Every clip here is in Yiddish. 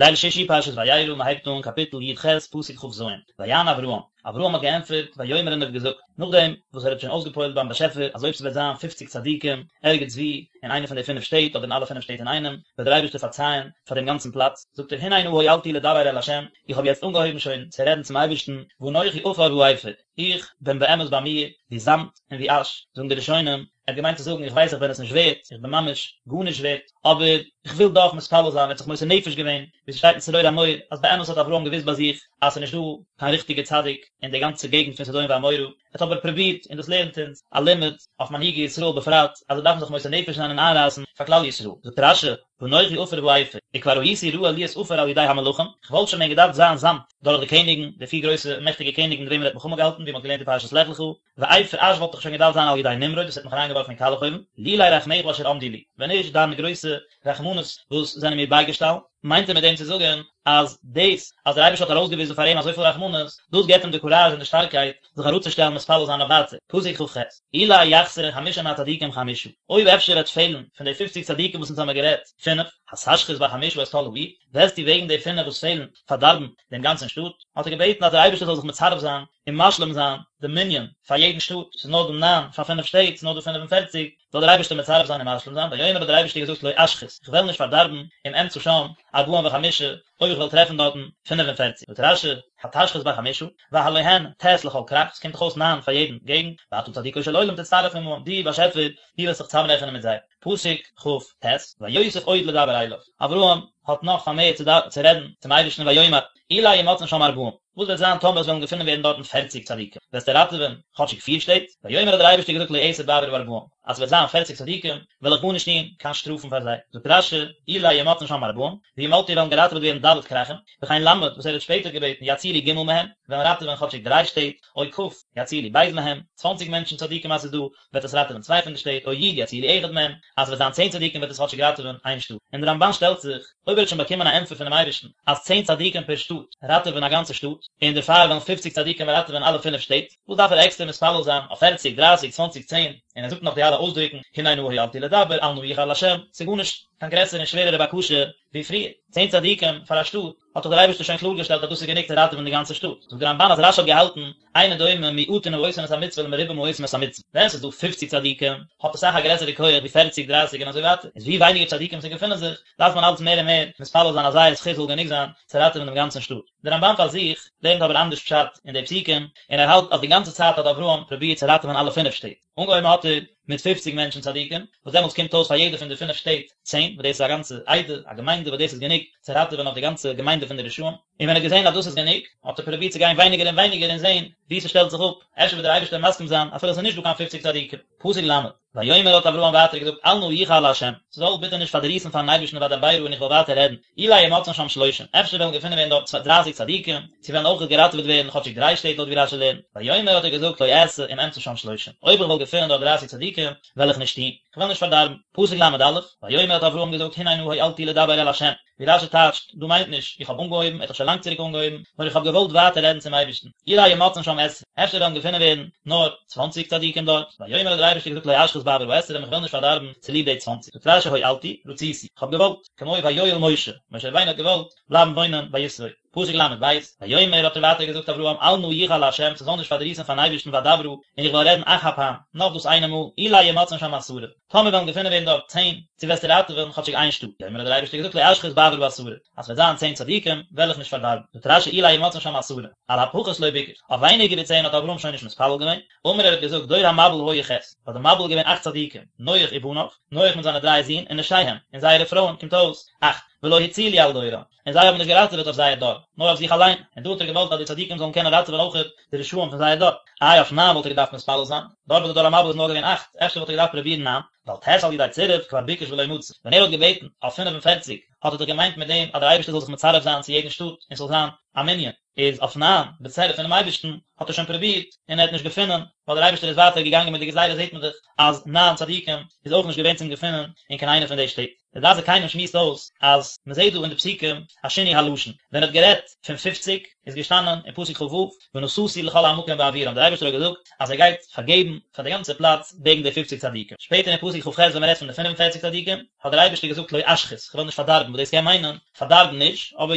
ליל שישי פרשת וירא, מען הייבט אן קאפיטל י ח פסוק כ ז, ויען אברהם, אברהם האט געענטפערט, ויאמר און ער האט געזאגט, נאכדעם וואס ער האט שוין אויסגעפועלט ביים באשעפער אז אויב ס'וועט זיין פופציג צדיקים ערגעץ וואו אין איינע פון די פינף שטעט אדער אין אלע פינף שטעט אינאיינעם, וועט דער אייבערשטער פארצייען פאר דעם גאנצן פלאץ, זאגט ער, הנה נא הואלתי לדבר אל ה', איך האב יעצט אנגעהויבן שוין צו רעדן צום אייבערשטן, ואנכי עפר ואפר, איך בין באמת ביי מיר ווי זאמד און ווי אש, זאגן די ראשונים, ער האט געמיינט צו זאגן איך ווייס איך בין עס נישט ווערט, איך בין ממש גארנישט ווערט, אבער איך וויל דאך מתפלל זיין, ער האט זיך מוסר נפש געווען, ווי ס'שטייט אין צרור המור, אז באמת האט אברהם געוואוסט ביי זיך אז ס'איז נישט דא קיין ריכטיגע צדיק אין די גאנצע געגנט פון סדום ועמורה, ער האט אבער פרובירט, און דאס לערנט אונז א לימוד אויף מנהיגי ישראל בפרט, אז זיי דארפן זיך מוסר נפש זיין און איינרייסן פאר כלל ישראל, זאגט רש י, ואנכי עפר ואפר, וכבר הייתי ראוי להיות עפר על ידי המלכים, כ'וואלט שוין ווען געדארפט זיין זאמד דורך די קעניגן, די פיר גרויסע מעכטיגע קעניגן מיט וועמען ער האט מלחמה געהאלטן, ווי מ'האט געלערנט אין פרשת לך לך, ואפר אש וואלט איך שוין געדארפט זיין על ידי נמרוד וואס האט מיך אריינגעווארפן אין קאלעך אויוון, לולי רחמיך אשר עמדו לי, ווען נישט דיינע גרויסע רחמנות וואס זענען מיר בייגעשטאנען, מיינט ער מיט דעם צו זאגן אז דאס אז דער אייבערשטער האט ארויסגעוויזן פאר אים אזויפיל רחמנות, דאס געבט אים די קוראזש און די שטארקייט זיך אראפצושטעלן מתפלל זיין אויף ווייטער, פסוק כ ח, אולי יחסרון חמשים מהצדיקים חמשה, אויב אפשר וועט פעלן פון די פופציג צדיקים וואס אונז האמיר גערעדט, פינף, התשחית בחמשה את כל העיר, וועסטו וועגן די פינף וואס פעלן פארדארבן דעם גאנצן שטאט, האט ער געבעטן אז דער אייבערשטער זאל זיך מצרף זיין און משלים זיין די מנין פאר יעדן שטאט, ס'איז נאר דא ניין פאר פינף שטעט, ס'איז נאר דא 45, זאל דער אייבערשטער מצרף זיין און משלים זיין, ויאמר האט דער אייבערשטער געזאגט לא אשחית, איך וועל נישט פארדארבן, אם אמצא שם ארבעים וחמשה, אויב איך וועל טרעפן דארטן 45. זאגט רש י, התשחית בחמשה, והלא הן ט' לכל כרך, ס'קומט דאך אויס ניין פאר יעדן געגנט, ואתה צדיקו של עולם תצטרף עמהם, דו באשעפער, דו וועסט זיך צוזאמרעכענען מיט זיי. פסוק כ ט, ויוסף עוד לדבר אליו, אברהם האט נאך פארמערט צו רעדן צום אייבערשטן ויאמר, אולי ימצאון שם ארבעים, וואס וועט זיין טאמער עס וועלן געפונען ווערן דארטן פערציג צדיקים, וועסטו ראטעווען כאטשיג פיר שטעט? ויאמר האט דער אייבערשטער געזאגט לא אעשה בעבור הארבעים, אז עס וועט זיין פערציג צדיקים, וועל איך גארנישט טון, קיין שטראפן פאר זיי. זאגט רש י, אולי ימצאון שם ארבעים, וימלטו וועלן געראטעוועט ווערן ד' כרכים, וכן ל' וואס ער האט שפעטער געבעטן יצילו ג' מהם, וועלן ראטעווען כאטשיג דריי שטעט, או כ' יצילו ב' מהם, צוואנציג מענטשן צדיקים אז ס'איז דא, וועט עס ראטעווען צוויי פון די שטעט, או י' יצילו אחד מהם, אז ס'וועט זיין צען צדיקים וועט עס כאטשיג ראטעווען איין שטאט. און דער רמבן שטעלט זיך, אויב ער האט שוין באקומען א ענטפער פונעם אייבערשטן אז צען צדיקים פער שטאט ראטעווען א גאנצע שטאט, און דערפאר וועלן פופציג צדיקים ראטעווען אלע פינף שטעט, וואס דארף ער עקסטער מתפלל זיין אויף פערציג, דרייסיג, צוואנציג, צען, און ער זאגט נאך די אלע אויסדרוקן, הנה נא הואלתי לדבר, אל נא יחר לה', ס'איז גארנישט קיין גרעסערע און שווערערע בקשה ווי פריער, צען צדיקים פאר א שטאט, האט דאך דער אייבערשטער שוין קלאר געשטעלט אז דאס איז גענוג צו ראטעווען די גאנצע שטאט. זאגט דער רמבן אז רש י האט געהאלטן, אינו דומה מועטין העושים את המצוה למרובים העושים את המצוה, ווען ס'איז דא פופציג צדיקים, האט עס אסאך א גרעסערע כח ווי פערציג, דרייסיג און אזוי ווייטער, איז ווי ווייניגער צדיקים ס'געפונען זיך, דארף מען אלץ מער און מער מתפלל זיין אז זייער זכות זאל גענוג זיין צו ראטעווען דעם גאנצן שטאט. דער רמבן פאר זיך לערנט אבער אנדערש פשט אין די פסוקים, און ער האלט אז די גאנצע צייט האט אברהם פרובירט צו ראטעווען אלע פינף שטעט. אנגעהויבן האט ער מיט פופציג מענטשן צדיקים, וואס דעמאלטס קומט אויס פאר יעדע פון די פינף שטעט צען, וואס דאס איז א גאנצע עדה, א געמיינדע, וואס דאס איז גענוג צו ראטעווען אויף די גאנצע געמיינדע פון די רשעים. און ווען ער האט געזען אז דאס איז גענוג, האט ער פרובירט צו גיין ווייניגער און ווייניגער און זען וואו ס'שטעלט זיך אפ, אפשר וועט דער אייבערשטער מסכים זיין אפילו עס איז נישט דא קיין פופציג צדיקים. פסוק ל', ויאמר האט אברהם ווייטער געזאגט אל נא יחר לה', ס'זאל ביטע נישט פארדריסן פארן אייבערשטן ואדברה און איך וועל ווייטער רעדן, אולי ימצאון שם שלושים, אפשר וועלן געפונען ווערן דארט דרייסיג צדיקים, צו וועלן אויך געראטעוועט ווערן כאטשיג דריי שטעט לויט ווי רשי לערנט, ויאמר האט ער געזאגט לא אעשה אם אמצא שם שלושים, אויב איך וועל געפונען דארט דרייסיג צדיקים, וועל איך נישט טון, איך וועל נישט פארדארבן. פסוק ל"א, ויאמר האט אברהם געזאגט הנה נא הואלתי לדבר אל ה', ווי רשי טייטשט, דא מיינט נישט, איך האב אנגעהויבן, ער האט דאך שוין לאנג צוריק אנגעהויבן, נאר איך האב געוואלט ווייטער רעדן צום אייבערשטן, אולי ימצאון שם עשרים, אפשר וועלן געפונען ווערן נאר צוואנציג צדיקים דארט, ויאמר האט דער אייבערשטער געזאגט לא אשחית בעבור העשרים, איך וועל נישט פארדארבן צוליב די צוואנציג, זאגט רשי הואלתי, רציתי, איך האב געוואלט, כמו ויואל משה, משה רבינו האט געוואלט בלייבן וואוינען ביי יתרו. פסוק ל"ב, ויאמר האט ער ווייטער געזאגט אברהם אל נא יחר לה' ס'זאל נישט פארדריסן פארן אייבערשטן ואדברה און איך וועל רעדן אך הפעם, נאך דאס איינע מאל, אולי ימצאון שם עשרה, טאמער וועלן געפונען ווערן דארט צען, צו וועסטו ראטעווען כאטשיג איין שטאט, ויאמר האט דער אייבערשטער געזאגט לא אשחית בעבור העשרה, אז ס'וועט זיין צען צדיקים, וועל איך נישט פארדארבן, זאגט רשי אולי ימצאון שם עשרה, על הפחות לא ביקש, אויף ווייניגער ווי צען האט אברהם שוין נישט מתפלל געווען, אמר ער האט געזאגט דור המבול היו ח', ביי די מבול איז געווען אכט צדיקים, נח ובניו, נח מיט זיינע דריי זין, ונשיהם, און זייערע פרויען, קומט אויס, אכט, ולא הצילו על דורם, און זיי האבן נישט געראטעוועט אויף זייער דור, נאר אויף זיך אליין, און דא האט ער געוואלט אז די צדיקים זאלן קענען ראטעווען אויכעט די רשעים פון זייער דור. איי אויף ניין וואלט ער געדארפט מתפלל זיין? דארט ביי די דור המבול איז נאר געווען אכט, אפשר וואלט ער געדארפט פרובירן ניין, ועל ט' על ידי צירוף כבר ביקש ולא מצא, ווען ער האט געבעטן אויף 45 האט ער דאך געמיינט מיט דעם אז דער אייבערשטער זאל זיך מצרף זיין צו יעדן שטאט און ס'זאל זיין א מנין, איז אויף ניין בצירוף פונעם אייבערשטן האט ער שוין פרובירט און ער האט נישט געפונען. ווייל דער אייבערשטער איז ווייטער געגאנגען מיט די גזירה זעט מען דאך אז ניין צדיקים איז אויך נישט געווען צום געפינען אין קיין איינע פון די שטעט. דער דעת זקנים שמועסט אויס אז מען זעט דא אין די פסוקים א שינוי הלשון, ווען ער האט גערעדט פון פופציג איז געשטאנען אין פסוק כ"ו ונשאתי לכל המקום בעבורם דער אייבערשטער האט געזאגט אז ער גייט פארגעבן פאר די גאנצע פלאץ וועגן די פופציג צדיקים, שפעטער אין פסוק כ"ח ווען מען רעדט פון די 45 צדיקים האט דער אייבערשטער געזאגט לא אשחית כ'וועל נישט פארדארבן וואס דאס קען מיינען פארדארבן נישט אבער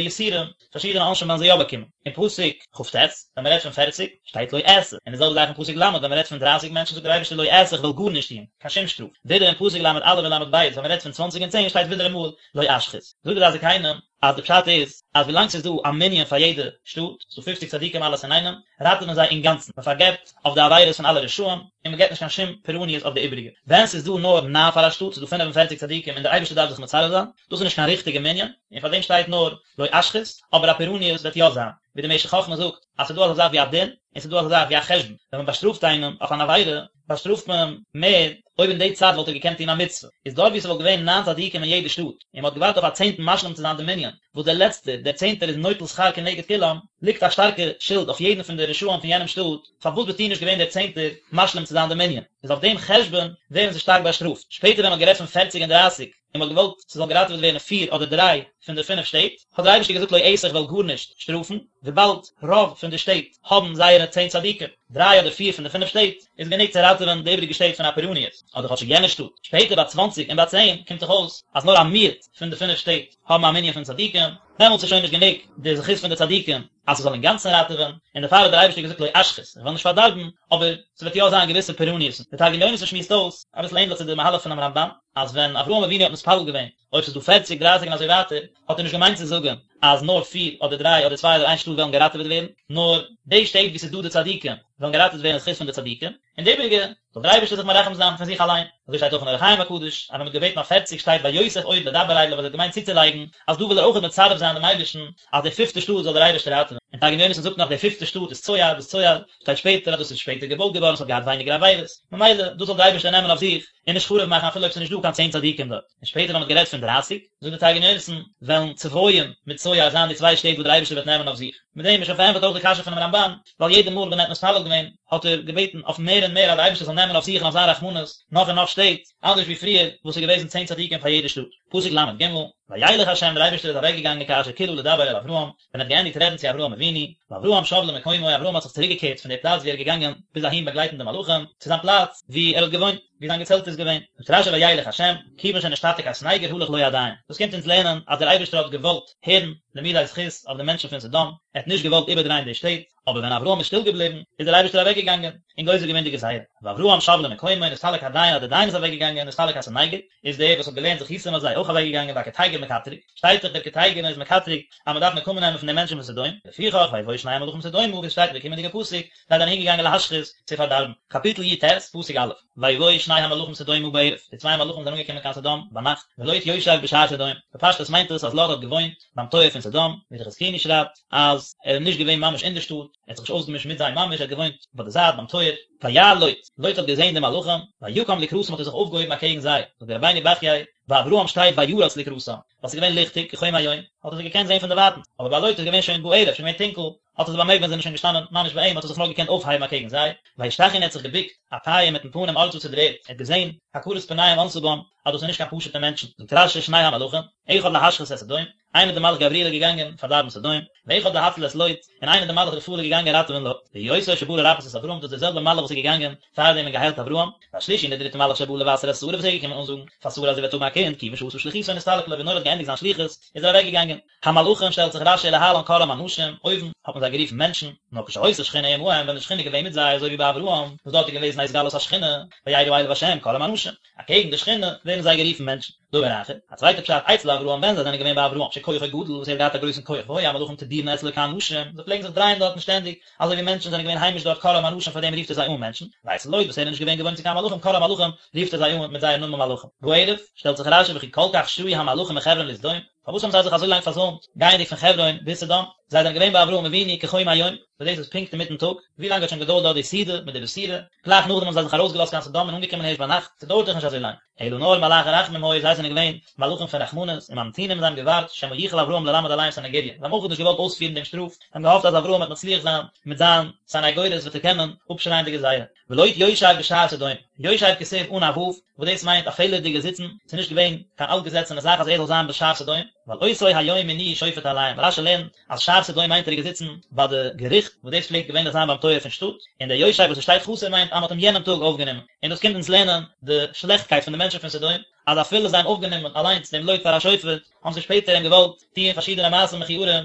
יסורים פארשידענע עונשים וועלן זיי יא באקומען. אין פסוק כ"ט, ווען מען רעדט פון פערציג, שטייט לא אעשה, און די זעלבע זאך אין פסוק ל' ווען מען רעדט פון דרייסיג מענטשן זאגט דער אייבערשטער לא אעשה איך וועל גארנישט טון, קיין שום שטראף. ווידער אין פסוק ל"א און ל"ב ווען מען רעדט פון צוואנציג און צען שטייט ווידעראמאל לא אשחית. זאגט דער דעת זקנים אז די פשט איז אז ווילאנג ס'איז דא א מנין פאר יעדע שטאט, ס'איז דא פופציג צדיקים אלעס אינאיינעם, ראטעווען זיי אינגאנצן, מען פארגעבט אויף די עבירות פון אלע רשעים, און מען געבט נישט קיין שום פורעניות אויף די איבעריגע. ווען ס'איז דא נאר ניין פאר א שטאט, ס'איז דא 45 צדיקים און דער אייבערשטער דארף זיך מצרף זיין, דאס איז נישט קיין ריכטיגע מנין, און פאר דעם שטייט נאר לא אשחית, אבער א פורעניות וועט יא זיין, ווי דער משך חכמה זאגט, אז ס'איז דא אזא זאך ווי א דין, און ס'איז דא אזא זאך ווי א חשבון, ווען מען באשטראפט איינעם אויף אן עבירה, באשטראפט מען אים מער אויב אין די צייט וואלט ער געקענט טון א מצוה, איז דארט ווי ס'וואלט געווען ניין צדיקים אין יעדע שטאט, און מ'האט געווארט אויף א צענטן משלים צו זיין די מנין, וואס דער לעצטער, דער צענטער איז נוטל שכר כנגד כולם, ליגט א שטארקע שולד אויף יעדן פון די רשעים פון יענעם שטאט, פארוואס ביסטו נישט געווען דער צענטער משלים צו זיין די מנין? איז אויף דעם חשבון ווערן זיי שטארק באשטראפט. שפעטער ווען מ'האט גערעדט פון פערציג און דרייסיג, און מ'האט געוואלט ס'זאל געראטעוועט ווערן פיר אדער דריי פון די פינף שטעט, האט דער אייבערשטער געזאגט לא אעשה איך וועל גארנישט שטראפן, וויבאלד רוב פון די שטעט האבן זייערע צען צדיקים, דריי אדער פיר פון די פינף שטעט, איז גענוג צו ראטעווען די איבעריגע שטעט פון א פורעניות, אדער כאטשיג יענע שטאט. שפעטער ביי צוואנציג און ביי צען קומט דאך אויס אז נאר א מיעוט פון די פינף שטעט האבן א מנין פון צדיקים, דעמאלטס איז שוין נישט גענוג די זכות פון די צדיקים אז ס'זאל אינגאנצן ראטעווען, און דערפאר האט דער אייבערשטער געזאגט לא אשחית, איך וועל נישט פארדארבן, אבער ס'וועט יא זיין געוויסע פורעניות'ן. דער תרגום יונתן שמועסט אויס, אביסל ענדליך צו די מהלך פונעם רמב"ן, אז ווען אברהם אבינו האט מתפלל געווען אויב ס'איז דא פערציג, דרייסיג און אזוי ווייטער, האט ער נישט געמיינט צו זאגן אז נאר פיר אדער דריי אדער צוויי אדער איין שטאט וועלן געראטעוועט ווערן, נאר די שטעט וואו ס'איז דא די צדיקים וועלן געראטעוועט ווערן אין זכות פון די צדיקים, און די איבעריגע זאל דער אייבערשטער זיך מרחם זיין פון זיך אליין. אזוי שטייט אויך אין אור החיים הקדוש, אז ווען מ'האט געבעטן אויף פערציג שטייט ויוסף עוד לדבר אליו אז ער האט געמיינט צוצולייגן אז דא וויל ער אויך מצרף זיין דעם אייבערשטן אז די פיפטע שטאט זאל דער אייבערשטער ראטעווען. און תרגום יונתן זאגט נאך די פיפטע שטאט איז צוער, וואס צוער שטייט שפעטער אז דאס איז שפעטער געבויט געווארן עס האט געהאט ווייניגער עבירות, ממילא דאס זאל דער אייבערשטער נעמען אויף זיך און נישט חרוב מאכן אפילו אויב ס'איז נישט דא קיין צען צדיקים דארט. און שפעטער ווען מ'האט גערעדט פון דרייסיג, זאגט דער תרגום יונתן, וועלן צבויים מיט צוער זיין די צוויי שטעט וואס דער אייבערשטער וועט נעמען אויף זיך. מיט דעם איז שוין פארענטפערט אויך די קשיא פונעם רמב"ן, ווייל יעדע מאל ווען ער האט מתפלל געווען, האט ער געבעטן אויף מער און מער אז דער אייבערשטער זאל נעמען אויף זיך און אויף זיין רחמנות נאך און נאך שטעט, אנדערש ווי פריער וואס איז געוועזן צען צדיקים פאר יעדע שטאט. פסוק ל"ג, וילך ה' דער אייבערשטער איז אוועקגעגאנגען כאשר כלה לדבר אל אברהם, ווען ער האט געענדיגט רעדן צו אברהם אבינו, ואברהם שב למקומו, אברהם האט זיך צוריקגעקערט פון די פלאץ וואו ער איז געגאנגען ביז אהין באגלייטן די מלאכים, צו זיין פלאץ וואו ער האט געוואוינט, וואו זיין געצעלט איז געווען. זאגט רש"י וילך ה', כיוון שנשתתק הסניגור הלך לו הדיין. דאס קומט אונז לערנען אז דער אייבערשטער האט געוואלט הערן לימודי זכות אויף די מענטשן פון סדום, ער האט נישט געוואלט איבערדרייען די שטעט, אבער ווען אברהם איז שטיל געבליבן, איז דער אייבערשטער אוועקגעגאנגען, און גוזר געווען די גזירה. ואברהם שב למקומו, נסתלק הדיין אז דער דיין איז אוועקגעגאנגען, נסתלק הסניגור, איז דער וואס האט געלערנט זכותים אויף זיי אויך אוועקגעגאנגען, והקטיגור מקטרג, שטייט דאך דער קטיגור איז מקטרג אז מען דארף נקמה נעמען פון די מענטשן פון סדום, לפיכך ויבואו שני המלאכים סדומה, ווי עס שטייט אין די קומענדיגע פסוק, זיי זענען אהינגעגאנגען להשחית, צו פארדארבן. קאפיטל י"ט, פסוק א', ויבואו שני המלאכים סדומה בערב, די צוויי מלאכים זענען אנגעקומען קיין סדום ביינאכט, ולוט יושב בשער סדום, בפשטות מיינט עס אז לוט האט געוואוינט ביים טויער פון סדום, ווי דער חזקוני שרייבט אז ער איז נישט געווען ממש אין די שטאט, ער האט זיך נישט אויסגעמישט מיט זיי ממש, ער האט געוואוינט ביי די זייט ביים טויער. וירא לוט, לוט האט געזען די מלאכים, ויקם לקראתם האט ער זיך אויפגעהויבן אקעגן זיי, זאגט דער רבינו בחיי, ביי אברהם שטייט וירץ לקראתם, ווייל ס'איז געווען ליכטיג, כחום היום, האט ער זיי געקענט זען פון דערווייטנס, אבער ביי לוט איז געווען שוין בערב, שוין געווען טונקל, האט ער זיי באמערקט ווען זיי זענען שוין געשטאנען ממש ביי אים, האט ער זיך נאר געקענט אויפהייבן אקעגן זיי, וישתחו און ער האט זיך געבוקט, אפים מיטן פנים ארצה צו דער ערד, ער האט געזען, הכרת פניהם ענתה בם, אז דאס איז נישט קיין פשוטע מענטשן, זאגט רש"י שני המלאכים, אחד להשחית את סדום, איינער דער מלאך גבריאל איז געגאנגען פארדארבן סדום, ואחד להציל את לוט, און איינער דער מלאך רפאל איז געגאנגען ראטעווען לוט, והוא אותו שבא לרפאות את אברהם, דאס איז דער זעלבער מלאך וואס איז געגאנגען פאר דעם און געהיילט אברהם, והשלישי און דער דריטער מלאך שבא לבשר את שרה וואס איז געקומען אנזאגן פאר שרה אז זי וועט האבן א קינד, כיוון שעשה שליחותו נסתלק לו ווי נאר ער האט געענדיגט זיין שליחות איז ער אוועק געגאנגען. המלאכים שטעלט זיך רש"י להלן קראם אנשים, אויבן האט מען זיי גערופן מענטשן, נאר כשהיתה שכינה עמהם ווען די שכינה איז געווען מיט זיי אזוי ווי ביי אברהם וואס דארט איז געוועזן א התגלות השכינה, וירא אליו השם קראם אנשים, אקעגן די שכינה ווערן זיי גערופן מענטשן. דבר אחר, א צווייטע פשט, אצל אברהם ווען זיי זענען געווען ביי אברהם שכוחו גדול וואס ער האט געהאט א גרויסן כח והיו המלאכים תדירין אצלו כאנשים, זיי פלעגן זיך דרייען דארטן שטענדיג, אזוי ווי מענטשן זענען געווען היימיש דארט קראם אנשים פאר דעם רופט ער זיי אן מענטשן, ואצל לוט וואס ער איז נישט געווען געוואוינט צו קיין מלאכים קראם מלאכים רופט ער זיי אן מיט זייער נאמען מלאכים. בערב, שטעלט זיך רש"י וכי כל כך שהו המלאכים מחברון לסדום? פארוואס האבן זיי זיך אזוי לאנג פארזוימט, גייענדיג פון חברון ביז סדום? זיי זענען געווען ביי אברהם אבינו כחום היום, וואס דאס איז פונקט אינמיטן טאג, ווי לאנג האט שוין געדויערט דארט די סעודה מיט די בשורה? גלייך נאכדעם האבן זיי זיך ארויסגעלאזט קיין סדום און אנגעקומען הערשט ביינאכט, ס'דויערט דאך נישט אזוי לאנג. אלא נאר מלאכי רחמים היו, זיי זענען געווען מלאכים פון רחמנות, וממתינים זיי האבן געווארט, שמא יוכל אברהם ללמד עליהם סניגוריא, זיי האבן אויך נישט געוואלט אויספירן דעם שטראף, זיי האבן געהאפט אז אברהם וועט מצליח זיין מיט זיין סניגורית וועט ער קענען אפשרייען די גזירה. ולוט יושב בשער סדום, יושב כתיב אן א ו', וואס דאס מיינט א פעלערדיגע זיצן, ס'איז נישט געווען קיין אלטגעזעצענע זאך אז ער זאל זיין בשער סדום, ווייל אותו היום מינוהו שופט עליהם, רש"י לערנט אז שער סדום מיינט ער איז געזיצן ביי די געריכט, וואס דאס פלעגט געווענליך זיין ביים טויער פון שטאט, און דער יושב וואס עס שטייט חסר מיינט אז מען האט אים יענעם טאג אויפגענומען, און דאס קומט אונז לערנען די שלעכטקייט פון די מענטשן פון סדום, אז אפילו זיי האבן אויפגענומען אליינס דעם לוט פאר א שופט, האבן זיי שפעטער אים געוואלט טוען פארשידענע מעשים מכוערים,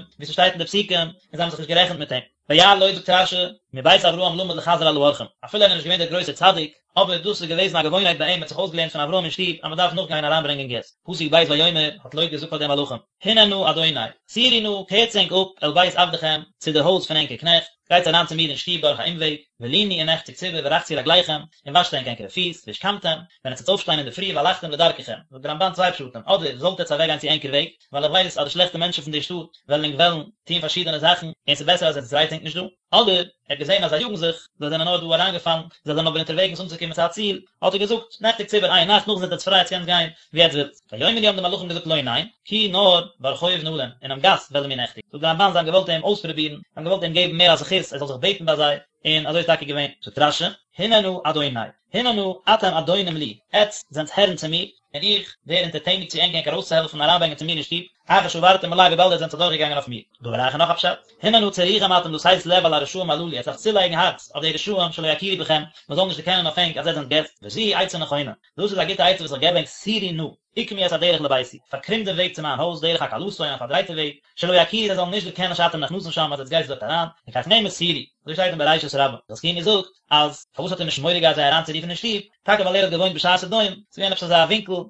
ווי ס'שטייט אין די פסוקים, און זיי האבן זיך נישט גערעכנט מיט אים. וירא לוט זאגט רש"י, מבית אברהם למד לחזר על האורחים, אפילו ער איז נישט געווען דער גרויסער צדיק, אבער דאס איז געוועזן א געוואוינהייט ביי אים, ער האט זיך אויסגעלערנט פון אברהם אין שטוב אז מען דארף נאכגיין אריינברענגען געסט. פסוק ב' ויאמר, האט לוט געזאגט פאר די מלאכים, הנה נא אדוני, סורו נא, קערטס ענק אפ, אל בית עבדכם, צו די הויז פון ענקער קנעכט, גייטס אריין צו מיר אין שטוב דורך א אומוועג, ולינו און נעכטיגטס איבער ורחצו רגליכם, און וואשט ענק ענקערע פיס, והשכמתם, ווען עטס וועט אויפשטיין אינדערפרי והלכתם לדרככם, זאגט דער רמב"ן צוויי פשטים, אדער זאלט עטס אוועקגיין צו ענקער וועג, ווייל איך ווייס אז די שלעכטע מענטשן פון די שטאט וועלן ענק וועלן טון פארשידענע זאכן, און ס'איז בעסער אז עטס דרייטס ענק נישט דא. אדער, ער האט געזען אז זיי יאגן זיך, זיי זענען נאר דא אריינגעפאלן, זיי זענען אבער אונטערוועגנס אנצוקומען צו א ציל, האט ער געזאגט, נעכטיגטס איבער איין נאכט, נאכדעם זענט עטס פריי עטס קענטס גיין ווי עטס ווילט. ויאמרו האבן די מלאכים געזאגט לא ניין, כי נאר ברחוב נלין, אינעם גאס וועלן מיר נעכטיגן. זאגט דער רמב"ן זיי האבן געוואלט אים אויספרובירן, זיי האבן געוואלט אים געבן מער א זכות ער זאל זיך בעטן ביי זיי, און אזוי איז טאקע געווען. זאגט רש"י, הנה נא אדוני, הנה נא אתם אדונים לי, עטס זענטס הערן צו מיר, און איך ווער אונטערטעניג צו ענק ענק ארויסצוהעלפן און אריינברענגען צו מיר אין שטוב, אחר שעברתם עלי וויבאלד עטס זענטס אדורכגעגאנגען אויף מיר. דבר אחר נאך א פשט, הנה נא צריכים אתם לתת לב על הרשעים הללו, עטס דארפטס צולייגן הארץ אויף די רשעים שלא יכירו בכם, מען זאל נישט דערקענען אויף ענק אז עטס זענט געסט, וזו היא עצה נכונה, דאס איז א גוטע עצה וואס איך געב ענק, סורו נא, עקמו את הדרך לביתי, פארקרום דעם וועג צו מיין הויז, דרך עקלתון, א פארדרייטע וועג, שלא יכירו זיי זאלן נישט דערקענען שאתם נכנסים שם אז עטס גייטס דארט אריין, לכך נאמר סורו, אזוי שטייט אין בראשית רבה, חזקוני זאגט אז פארוואס האט ער נישט מורא געהאט זיי אריינצורופן אין שטוב, טאקע ווייל ער האט געוואוינט בשער סדום, ס'איז געווען עפעס אזא ווינקל, און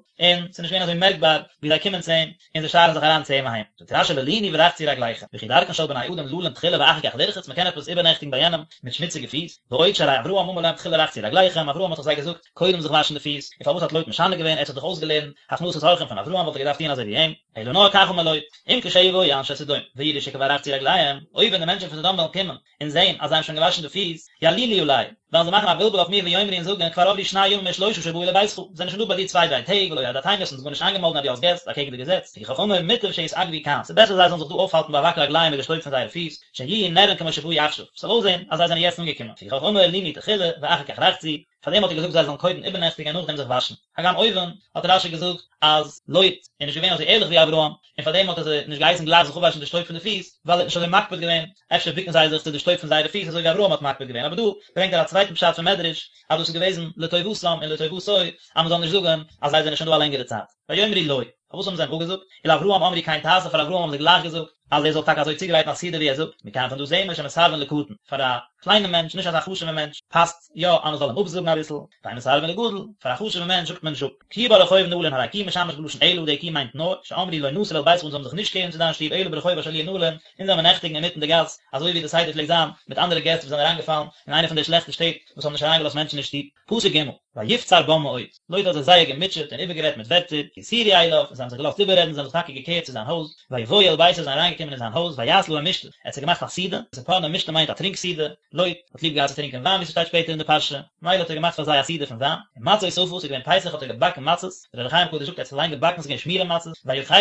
ס'איז נישט געווען אזוי מערקבאר ווי זיי קומען צו אים, און זיי שארן זיך אריין צו אים אהיים. זאגט רש"י ולינו ורחצו רגליכם, וכי דרכן של בני אדם ללון תחילה ואחר כך לרחוץ, מ'קען עפעס איבערנעכטיגן ביי יענעם מיט שמוציגע פיס, ועוד שהרי אברהם אמר להם תחילה רחצו רגליכם, אברהם האט דאך זיי געזאגט קודם זיך וואשן די פיס, און פארוואס האט לוט משנה געווען, ער האט זיך דאך אויסגעלערנט הכנסת אורחים פון אברהם וואלט ער געדארפט טון אזוי ווי אים, אלא נאר כך אמר לוט, אם כשיבואו אנשי סדום ויראו שכבר רחצו רגליהם, אויב ווען די מענטשן פון סדום וועלן קומען און זען אז זיי האבן שוין געוואשן די פיס, יעלילו עלי, וועלן זיי מאכן א בלבול אויף מיר ויאמרו און זאגן כבר עברו שני ימים או שלושה שבאו לביתך, זיי זענען שוין דא ביי דיר צוויי דריי טעג ולא הודעתנו האסט אונז גארנישט איינגעמאלדן אז דו האסט געסט, אקעגן די געזעץ, לפיכך אמר מוטב שיתעכבו כאן, ס'איז בעסער זיי זאלן זיך דא אויפהאלטן באבק רגליהם מיט די שטויב פון זייערע פיס, שיהיו נראין כמו שבאו עכשיו, ס'זאל אויסזען אז זיי זענען יעצט אנגעקומען, לפיכך אמר לינו תחילה ואחר כך רחצו, פארדעם האט ער געזאגט זיי זאלן קודם איבערנעכטיגן און נאכדעם זיך וואשן. הגם אויבן האט רש"י געזאגט אז לוט איז נישט געווען אזוי ערליך ווי אברהם, און פארדעם האט ער זיי נישט געהייסן גלייך זיך אפוואשן די שטויב פון די פיס, ווייל ער האט נישט אזוי מקפיד געווען, אפשר בוקן זיי זיך צו די שטויב פון זייערע פיס אזוי ווי אברהם האט מקפיד געווען, אבער דא ברענגט ער א צווייטן פשט פון מדרש אז דאס איז געוועזן לטובתם און לטובתו אז מען זאל נישט זאגן אז זיי זענען שוין דא א לענגערע צייט. ויאמרו לא. פארוואס האבן זיי אים אפגעזאגט? ולאברהם אמרו כן תעשה פאר אברהם האבן זיי גלייך געזאגט אז ער זאל טאקע אזוי צוגרייטן א סעודה ווי ער זאגט, מכאן פון דא זעהן מיר שמסרבין לקטן, פאר א קליינעם מענטש, נישט אזא חשוב'ע מענטש, פאסט יא אז מען זאל אים אפזאגן אביסל, ואין מסרבין לגדול, פאר א חשוב'ע מענטש זאגט מען נישט אפ. כי ברחוב נלין הרי כי משמש בלשון אלא, די כי מיינט נאר, שאמרו לא נסור אל ביתך אונז זאלן זיך נישט קערן צו דיין שטוב אלא ברחוב אשר לי נלין, אונז זאל מען נעכטיגן אינמיטן די גאס, אזוי ווי די סדר פלעגט זיין מיט אנדערע געסט וואס זענען אריינגעפאלן אין איינע פון די שלעכטע שטעט וואס האבן נישט אריינגעלאזט מענטשן אין שטוב. פסוק ג', ויפצר בם מאוד, לוט האט זיי זייער געמוטשעט און איבערגערעדט מיט ווערטער, ויסורו אליו, און זיי האבן זיך געלאזט איבעררעדן, זיי האבן זיך טאקע געקערט צו זיין הויז, ויבואו אל ביתו, זיי זענען אריינגעקומען אין זיין הויז, ויעש להם משתה, ער האט זיי געמאכט א סעודה, ספורנו משתה מיינט א טרינק סעודה, לוט האט ליב געהאט צו טרינקען וויין ווי ס'שטייט שפעטער אין די פרשה, מילא האט ער געמאכט פאר זיי א סעודה פון וויין, און מצות אפה, ס'איז געווען פסח האט ער געבאקן מצות, דער אור החיים הקדוש זאגט ער האט עס אליין געבאקן, ס'איז געווען שמורה מצות, ויאכלו,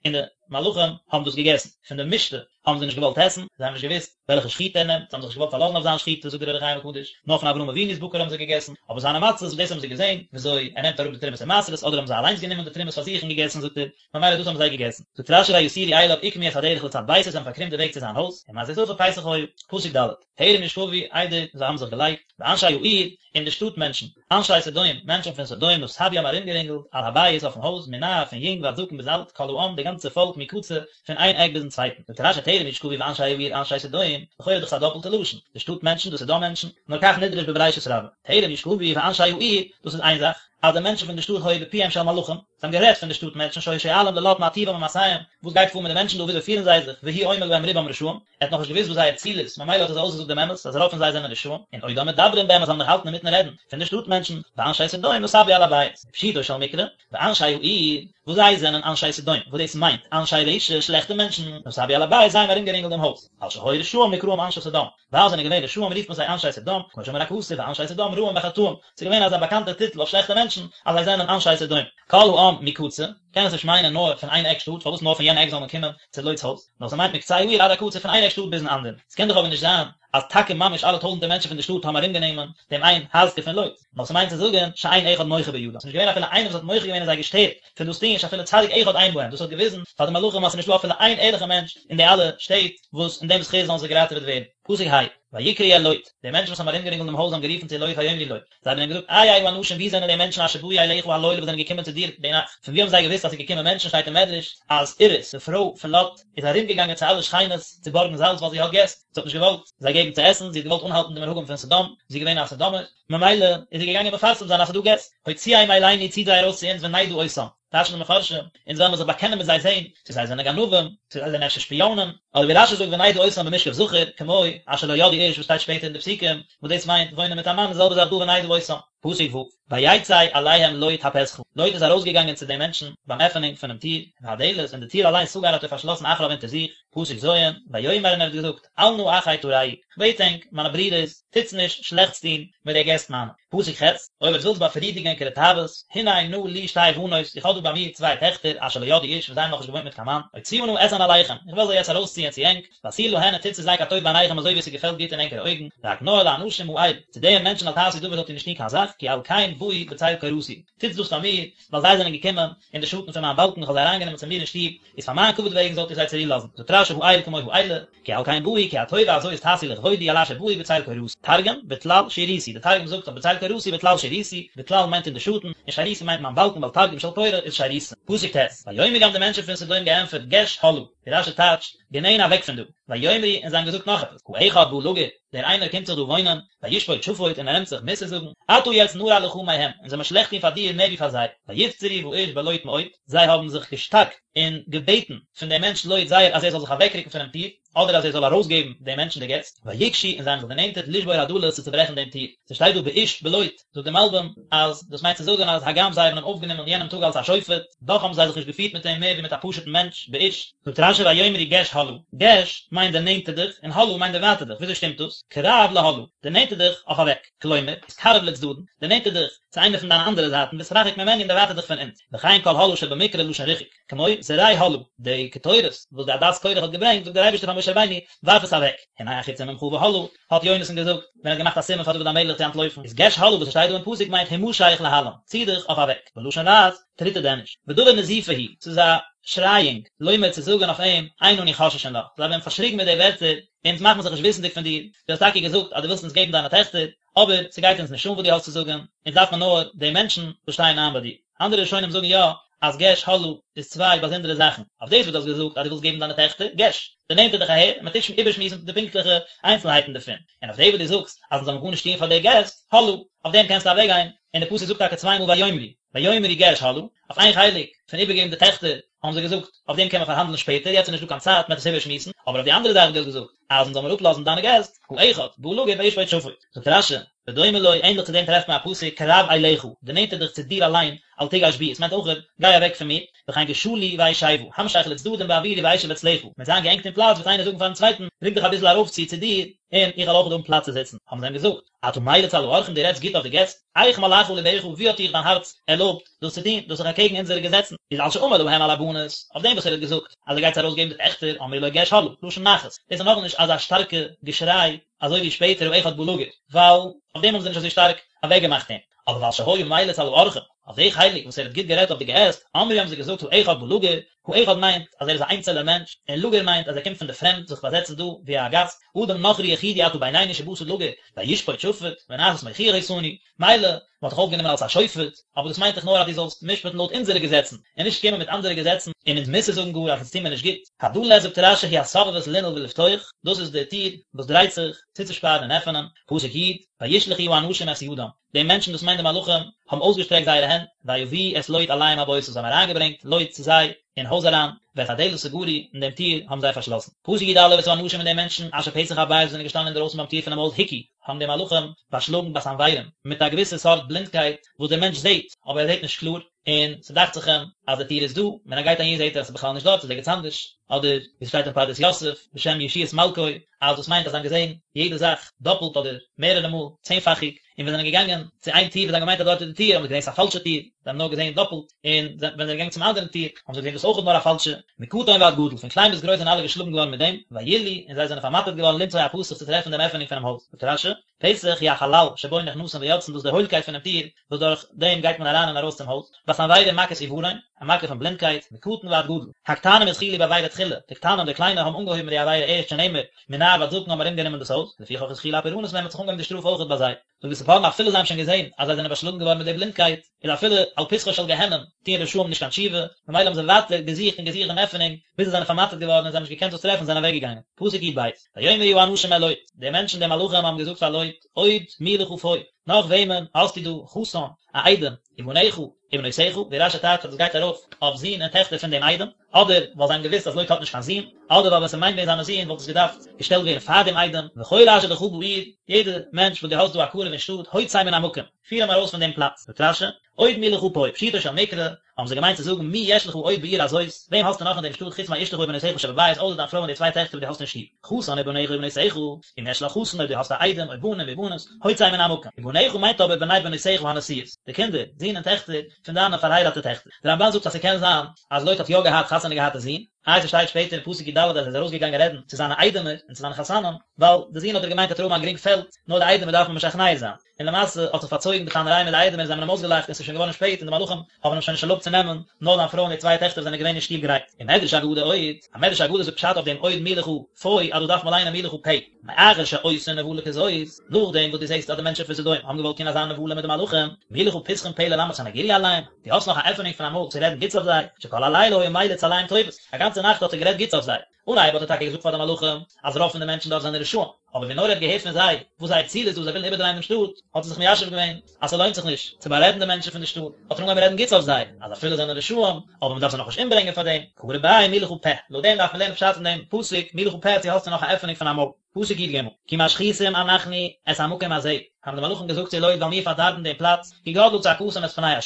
און די מלאכים האבן דאס געגעסן, פון די משתה האבן זיי נישט געוואלט עסן, זיי האבן נישט געוואוסט וועלכע שחיטה ער נעמט, זיי האבן זיך נישט געוואלט פארלאזן אויף זיין שחיטה, זאגט דער אור החיים הקדוש, נאר פון אברהם אבינו'ס בקר האבן זיי געגעסן, אבער זיינע מצות, דאס האבן זיי געזען, וויאזוי ער נעמט אראפ די תרומות און מעשרות, אדער האבן זיי אליינס גענומען די תרומות פאר זיך און געגעסן, זאגט ער, ממילא דאס האבן זיי געגעסן. זאגט רש"י ויסורו אליו עקמו את הדרך לצד ביתו, זיי האבן פארקרומט די וועג צו זיין הויז, ומצות אפה פסח היה, פסוק ד', טרם ישכבו, איידער זיי האבן זיך געלייגט, ואנשי העיר, און די שטאט מענטשן, אנשי סדום, מענטשן פון סדום, נסבו האבן ארומגערינגלט, על הבית, אויפן הויז, מנער, פון יונג ועד זקן ביז אלט, כל העם, די גאנצע פאלק, מקצה, פון איין עק ביזן צווייטן. זאגט רש"י טרם ישכבו ואנשי העיר אנשי סדום, לכאורה איז דאך עס א דאפלטע לשון, די שטאט מענטשן, די סדום מענטשן, נאר כך נדרש בבראשית רבה, טרם ישכבו ואנשי העיר, דאס איז איין זאך. אז די מענטשן פון די שטאט היו בפיהם של מלאכים, זיי האבן גערעדט פון די שטאט מענטשן שהיו שואלים ללוט מה טיבם ומעשיהם, וואס גייט פאר מיט די מענטשן דא וויאזוי פירן זיי זיך, והוא אומר להם רובם רשעים, ער האט נאכנישט געוואוסט וואס זייער ציל איז, ממילא האט ער זיי אויסגעזאגט דעם אמת אז רוב פון זיי זענען רשעים, און עודם מדברים בהם אז זיי האבן נאך געהאלטן אינמיטן רעדן פון די שטאט מענטשן, ואנשי סדום נסבו על הבית, פשוטו של מקרא, ואנשי העיר, וואס זיי זענען אנשי סדום, וואס דאס מיינט, אנשי רשע, שלעכטע מענטשן, נסבו על הבית, זיי האבן ארומגערינגלט דעם הויז, על שהיו רשעים נקראים אנשי סדום, ווייל זיי זענען געווען רשעים רופט מען זיי אנשי סדום, כמו שאמר הכתוב ואנשי סדום רעים בחטאים, ס'איז געווען אזא באקאנטע טיטל אויף שלעכטע מענטשן אז זיי זענען אנשי סדום. כל העם מקצה, קען עס נישט מיינען נאר פון איין עק שטאט, פארוואס נאר פון יענע עק זאל מען קומען צו לוט'ס הויז, נאר ס'מיינט מקצה העיר עד הקצה פון איין עק שטאט ביזן אנדערן. ס'קען דאך אבער נישט זיין אז טאקע ממש אלע טויזנטער מענטשן פון די שטאט האבן ארומגענומען דעם איין הייזקע פון לוט, נאר ס'מיינט צו זאגן שאין אחד מוחה בידם, ס'איז נישט געווען אפילו איינער וואס האט מוחה געווען און זיי געשטערט פון דאס טון, שאפילו צדיק אחד אין בהם, דאס האט געוויזן פאר די מלאכים אז ס'איז נישטא אפילו איין ערליכער מענטש אין די אלע שטעט וואס אין דעם זכות זאלן זיי געראטעוועט ווערן. פסוק ה', ויקראו אל לוט, די מענטשן וואס האבן ארומגערינגלט דעם הויז האבן גערופן צו לוט ויאמרו לו, זיי האבן אים געזאגט, איה האנשים וואו זענען די מענטשן אשר באו אליך הלילה וואס זענען געקומען צו דיר די נאכט? פון וואו האבן זיי געוואוסט אז ס'איז געקומען מענטשן? שטייט אין מדרש אז עירית, די פרוי פון לוט, איז ארומגעגאנגען צו אלע שכינות צו בארגן זאלץ ווייל זי האט געסט, זי האט נישט געוואלט זיי געבן צו עסן, זי האט געוואלט אנהאלטן די מנהגים פון סדום, זי איז געווען א סדומער, ממילא איז זי געגאנגען מפרסם זיין אז ס'איז דא געסט, הוציאם אלינו ציט זיי ארויס צו אונז ונדעה אותם, טייטשן די מפרשים, אונז וועלן מיר זיך באקענען מיט זיי זען צו זיי זענען גנבים, צו זיי זענען אפשר שפיאנען, אדער ווי רשי זאגט ונדעה אותם במשכב זכר, כמו אשר לא ידעו איש וואס שטייט שפעטער אין די פסוקים, וואס דאס מיינט וואוינען מיט א מאן, די זעלבע זאך דא ונדעה אותם. פסוק ו', ויצא אליהם לוט הפתחה, לוט איז ארויסגעגאנגען צו די מענטשן ביים עפענונג פונעם טיר, והדלת, און די טיר אליין סגר האט ער פארשלאסן אחריו אונטער זיך, פסוק ז', ויאמר און ער האט געזאגט, אל נא אחי תרעו, כ'בעט ענק, מיינע ברידערס, טוטס נישט שלעכטס טון מיט די געסט מיינע. פסוק ח', אויב עטס ווילטס באפרידיגן ענקערע תאוות, הנה נא לי שתי בנות, איך האב דא ביי מיר צוויי טעכטער, אשר לא ידעו איש, וואס זיי האבן נאכנישט געוואוינט מיט קיין מאן, אוציאה נא אתהן אליכם, איך וועל זיי יעצט ארויסציען צו ענק, ועשו להן און טוטס צו זיי כטוב בעיניכם אזוי ווי עס געפעלט גוט אין ענקערע אויגן, רק נא אל האנשים האל, צו די מענטשן אל תעשו דבר זאלט איר נישט טון קיין זאך, כי על כן באו בצל קורתי, טוטס דאס פאר מיר, ווייל זיי זענען געקומען אין די שאטן פון מיין באלקן, איך האב זיי אריינגענומען צו מיר אין שטוב, איז פאר מיין כבוד וועגן זאלט איר זיי צורו לאזן. זאגט רשי האל כמו האלה, כי על כן באו, כי הטובה הזאת תעשו לכבודי על אשר באו בצל קורתי. תרגום, בטלל שירותי, די תרגום זאגט אויף בצל קורתי בטלל שירותי, בטלל מיינט אין די שאטן, און שירותי מיינט מיין באלקן ווייל תרגום של קורה איז שירותא. פסוק ט', ויאמרו האבן די מענטשן פון סדום געענטפערט געש הלאה, ווי רשי טייטשט, גענען אוועק פון דא, ויאמרו און זיי האבן געזאגט נאך עפעס, האחד בא לגור, דער איינער קומט זיך דא וואוינען, וישפוט שפוט און ער נעמט זיך מוסר זאגן, עתה יעצט נרע לך מהם, אונז וועלן מיר שלעכט טון פאר דיר מער ווי פאר זיי, ויפצרו באיש בלוט מאוד, זיי האבן זיך געשטארקט און געבעטן פון דעם מענטש לוט זייער אז ער זאל זיך אוועקרוקן פונעם טיר, אדער אז ער זאל ארויסגעבן די מענטשן די געסט, ויגשו און זיי האבן זיך דערנענטערט לשבור הדלת צו צוברעכן דעם טיר, ס'שטייט דא באיש בלוט, זאגט דער מלבים אז דאס מיינט צו זאגן אז הגם זיי האבן אים אויפגענומען יענעם טאג אלס א שופט, דאך האבן זיי זיך נישט געפירט מיט אים מער ווי מיט א פשוט'ן מענטש, באיש. זאגט רשי ויאמרו גש הלאה, גש מיינט דערנענטער דיך און הלאה מיינט דערווייטער דיך, וויאזוי שטימט דאס? קרב להלאה, דערנענטער דיך אויף אוועק, כלומר, התקרב לצדדין, דערנענטער דיך צו איינע פון דיינע אנדערע זייטן והתרחק ממנו און דערווייטער דיך פון אונז, וכן כל הלאה שבמקרא לשון ריחוק, כמו זרה הלאה, די קטורת וואס די עדת קורח האט געברענגט, זאגט דער אייבערשטער פאר משה רבינו, ווארף עס אוועק, הנה החיצים ממך והלאה, האט יונתן געזאגט, ווען ער האט געמאכט א סימן פאר דוד המלך צו אנטלויפן, איז גש הלאה וואס עס שטייט דא אין פסוק מיינט המשך להלן, צי דיך אויף אוועק, בלשון לעז, טריט ער דען נישט. ודבר נזיפה הוא, ס'איז א שרייאונג, לומר צו זאגן אויף אים, אין אנו חוששין לך, זיי האבן אים פארשריגן מיט די ווערטער, אונז מאכן מיר זיך נישט וויסנדיג פון דיר, דו האסט טאקע געזאגט אז דו ווילסט אונז געבן דיינע טעכטער, אבער ס'גייט אונז נישט אן וואס דו האסט צו זאגן, אונז דארף מען נאר די מענטשן וואס שטייען איין ביי דיר. אנדערע ראשונים זאגן יא אז גש הלאה איז צוויי באזונדערע זאכן, אויף דאס וואס דו האסט געזאגט אז דו ווילסט געבן דיינע טעכטער, גש, דערנענטער דיך אהער, און מ'טוט איבערשמועסן די פונקטליכע איינצלהייטן דערפון, און אויף דאס וואס דו זאגסט אז אונז זאלן גארנישט טון פאר די געסט, הלאה, אויף דעם קענסטו אוועקגיין, און די פסוק זאגט טאקע צוויי מאל ויאמרו, ויאמרו גש הלאה, אויף איין חלק פון איבערגעבן די טעכטער האבן זיי געזאגט, אויף דעם קען מען פארהאנדלען שפעטער, יעצט איז נישטא קיין צייט, מ'וועט עס איבערשמועסן, אבער אויף די אנדערע זאך וואס דו האסט געזאגט, אז אונז זאל מיר אפלאזן דיינע געסט, האחד, בא לגור וישפוט שפוט. זאגט רשי, ודומה לו, ענדליך צו דעם טרעפט מען א פסוק, קרב אליך, דערנענטער דיך צו דיר אליין, אל תגש בי, עס מיינט אויך, גיי אוועק פון מיר, וכן גשה לי ואשבה, המשך לצדדים בעבורי ואשב אצלך, מ'וועט זיין געענגט אין פלאץ וועט איינער זאגן פארן צווייטן, רוק דיך אביסל ארויפצו צו דיר, און איך וועל אויך האבן פלאץ צו זיצן. האבן זיי אים געזאגט, אתה מליץ על האורחים דו רעדסט גוט אויף די געסט? איך מלאך לבך ווי האט דיך דיין הארץ ערלויבט דאס צו טון, דאס איז דאך אקעגן אונזערע געזעצן, איז על שאמר להם על הבנות, אויף דעם וואס ער האט געזאגט אז ער גייט זיי ארויסגעבן די טעכטער, אמרו לו גש הלאה, לשון נחת, דאס איז נאכנישט אזא שטארקע געשריי אזוי ווי שפעטער האחד בא לגור, ווייל אויף דעם האבן זיי נישט אזוי שטארק אוועקגעמאכט אים, אבער ועל שהיה מליץ על האורחים, אויף די חלק וואס ער האט גוט גערעדט אויף די געסט, אמרו האבן זיי געזאגט האחד בא לגור, האחד מיינט אז ער איז א איינצעלער מענטש, און לגור מיינט אז ער קומט פון די פרעמד זיך באזעצן דא ווי א גאסט, אדם נכרי יחידי אתה בינינו שבאת לגור, וישפוט שפוט, ונעשית מוכיח אותנו, מילא, מען האט דיך אויפגענומען אלס א שופט, אבער דאס מיינט דאך נאר אז דו זאלסט משפט'ן לויט אונזערע געזעצן, און נישט קומען מיט אנדערע געזעצן און אונז מוסר זאגן גאר אז אונז טוהן מיר נישט גוט. הדלת זאגט רשי היא הסובבת לנעול ולפתוח, דאס איז די טיר וואס דרייט זיך, צוצושפארן און עפענען, פסוק י', וישלחו האנשים את ידם, די מענטשן דאס מיינט די מלאכים, האבן אויסגעשטרעקט זייערע הענט. הענט, ויביאו את לוט אליהם הביתה, זיי האבן אריינגעברענגט לוט צו זיי אין הויז אריין, ואת הדלת סגרו, און דעם טיר האבן זיי פארשלאסן. פסוק י א, ואת האנשים און די מענטשן אשר פתח הבית וואס זענען געשטאנען אינדערויסן ביים טיר פונעם הויז הכו, האבן די מלאכים באשלאגן בסנורים, מיט א געוויסע סארט בלינדקייט וואס דער מענטש זעט, אבער ער זעט נישט קלאר, און ס'דאכט זיך אים אז די טיר איז דא, ווען ער גייט אהין זעט ער אז ס'איז בכלל נישט דארט, ס'איז ערגעץ אנדערש, אדער ווי ס'שטייט אין פרדס יוסף בשם ישועות מלכו, אז דאס מיינט אז זיי האבן געזען יעדע זאך דאפלט אדער מערערע מאל, צענפאכיג, און ווען זיי זענען געגאנגען צו איין טיר וואס זיי האבן געמיינט אז דארט איז די טיר, האבן זיי געזען ס'איז א פאלשע טיר, זיי האבן נאר געזען דאפלט, און ווען זיי זענען געגאנגען צום אנדערן טיר, האבן זיי געזען דאס אויך איז נאר א פאלשע, מקטן ועד גדול, פון קליין ביז גרויס זענען אלע געשלאגן געווארן מיט דעם, וילאו, און זיי זענען פארמאטערט געווארן למצוא הפתח צו טרעפן דעם עפענונג פונעם הויז. זאגט רש י, פתח הוא החלל שבו נכנסין ויוצאין דאס איז די הוילקייט פונעם טיר וואס דורך דעם גייט מען אריין און ארויס צום הויז, בסנוורים מכת עוורון, א מכה פון בלינדקייט, מקטן ועד גדול, הקטנים התחילו בעבירה תחילה, די קטנים די קליינע האבן אנגעהויבן מיט די עבירה ערשט שנאמר, מנער ועד זקן האבן ארומגענומען דאס הויז, לפיכך התחילה הפורענות מהם האט זיך אנגעהויבן די שטראף אויכעט ביי זיי. זאגט די ספורנו אפילו זיי האבן שוין געזען אז זיי זענען באשלאגן געווארן מיט די בלינדקייט, איז אפילו על פתחו של גיהנום טוען רשעים נישט קיין תשובה, ממילא האבן זיי ווייטער געזוכט און געזוכט דעם עפענונג, ביז זיי זענען פארמאטערט געווארן און זיי האבן נישט געקענט דאס טרעפן און זענען אוועקגעגאנגען. פסוק י ב, ויאמרו האנשים אל לוט, די מענטשן די מלאכים האבן געזאגט פאר לוט, עוד מי לך פה, נאך וועמען האסטו דא, חתן, א איידעם, ובניך, ובנותיך, ווי רש י טייטשט אז דאס גייט ארויף אויף זין און טעכטער פון דעם איידעם, אדער ווייל זיי האבן געוואוסט אז לוט האט נישט קיין זין, אדער ווייל ווען ס'מיינט ווען זיינע זין וואלט עס געדארפט געשטעלט ווערן פאר דעם איידעם, וכל אשר לך בעיר, יעדער מענטש וואס דו האסט דא א קרוב אין שטאט, הוצא מן המקום, פיר אים ארויס פון דעם פלאץ. זאגט רש י, עוד מי לך פה, פשוטו של מקרא, האבן זיי געמיינט צו זאגן מי יש לך עוד בעיר הזאת, וועם האסטו נאך אין דעם שטאט חוץ מאשתך ובנותיך שבבית אויסער דיין פרוי און די צוויי טעכטער וואס דו האסט אין שטוב, חתן ובניך ובנותיך, אם יש לך חתן אויב דו האסט א איידעם או בנים ובנות, הוצא מן המקום, ובניך מיינט אבער בני בנותיך הנשואות, די קינדער, זין און טעכטער, פון דיינע פארהייראטע טעכטער. דער רמבן זאגט אז ס'קען זיין אז לוט האט יא געהאט חתונה געהאטע זין, איי ס'שטייט שפעטער אין פסוק י ד אז ער איז ארויסגעגאנגען רעדן צו זיינע איידעמער און צו זיינע חתנים, ווייל די זין האט ער געמיינט וועט ער האבן א גרינג פעלד, נאר די איידעמער דארף מען משכנע זיין. און למעשה האט זיך פארצויגן די טענה'ריי מיט די איידעמער און זיי האבן אים אויסגעלאכט און ס'איז שוין געווארן שפעט און די מלאכים האבן אים שוין נישט ערלויבט צו נעמען, נאר זיין פרוי און די צוויי טעכטער וואס זענען געווען אין שטוב גרייט. ומדרש אגדה עוד, א מדרש אגדה זאגט פשט אויף דעם עוד מי לך פה אז דאס דארף מען ליינען מי לך פה. מאחר שעושין נבלה כזאת, נאכדעם וואס דו זעסט אז די מענטשן פון סדום האבן געוואלט טון אזא נבלה מיט די מלאכים, מי לך פתחון פה ללמד סניגוריא עליהם, דו האסט נאך א עפענונג פון א מויל צו רעדן גוטס אויף זיי, שכל הלילה היה מליץ עליהם טובות, א גאנצע נאכט האט ער גערעדט גוטס אויף זיי. אנהייב האט ער טאקע געזאגט פאר די מלאכים אז רוב פון די מענטשן דארט זענען רשעים, אבער ווי נאר ער האט געהערט פון זיי וואס זייער ציל איז דא, זיי ווילן איבערדרייען דעם שטאט, האט ער זיך מיישב געווען אז ס'לוינט זיך נישט צו בארעדן די מענטשן פון די שטאט, האט ער אנגעהויבן רעדן גוטס אויף זיי, אז אפילו זענען רשעים, אבער מ'דארף זיי נאכנישט אומברענגען פאר דעם, קרי ביה מי לך פה, לויט דעם דארף מען לערנען פשט אין דעם פסוק, מי לך פה צו האסטו נאך א עפענונג פון א מויל. פסוק י ג, כי משחיתים אנחנו את המקום הזה, האבן די מלאכים געזאגט צו לוט ווייל מיר פארדארבן דעם פלאץ, כי גדלה צעקתם את פני ה',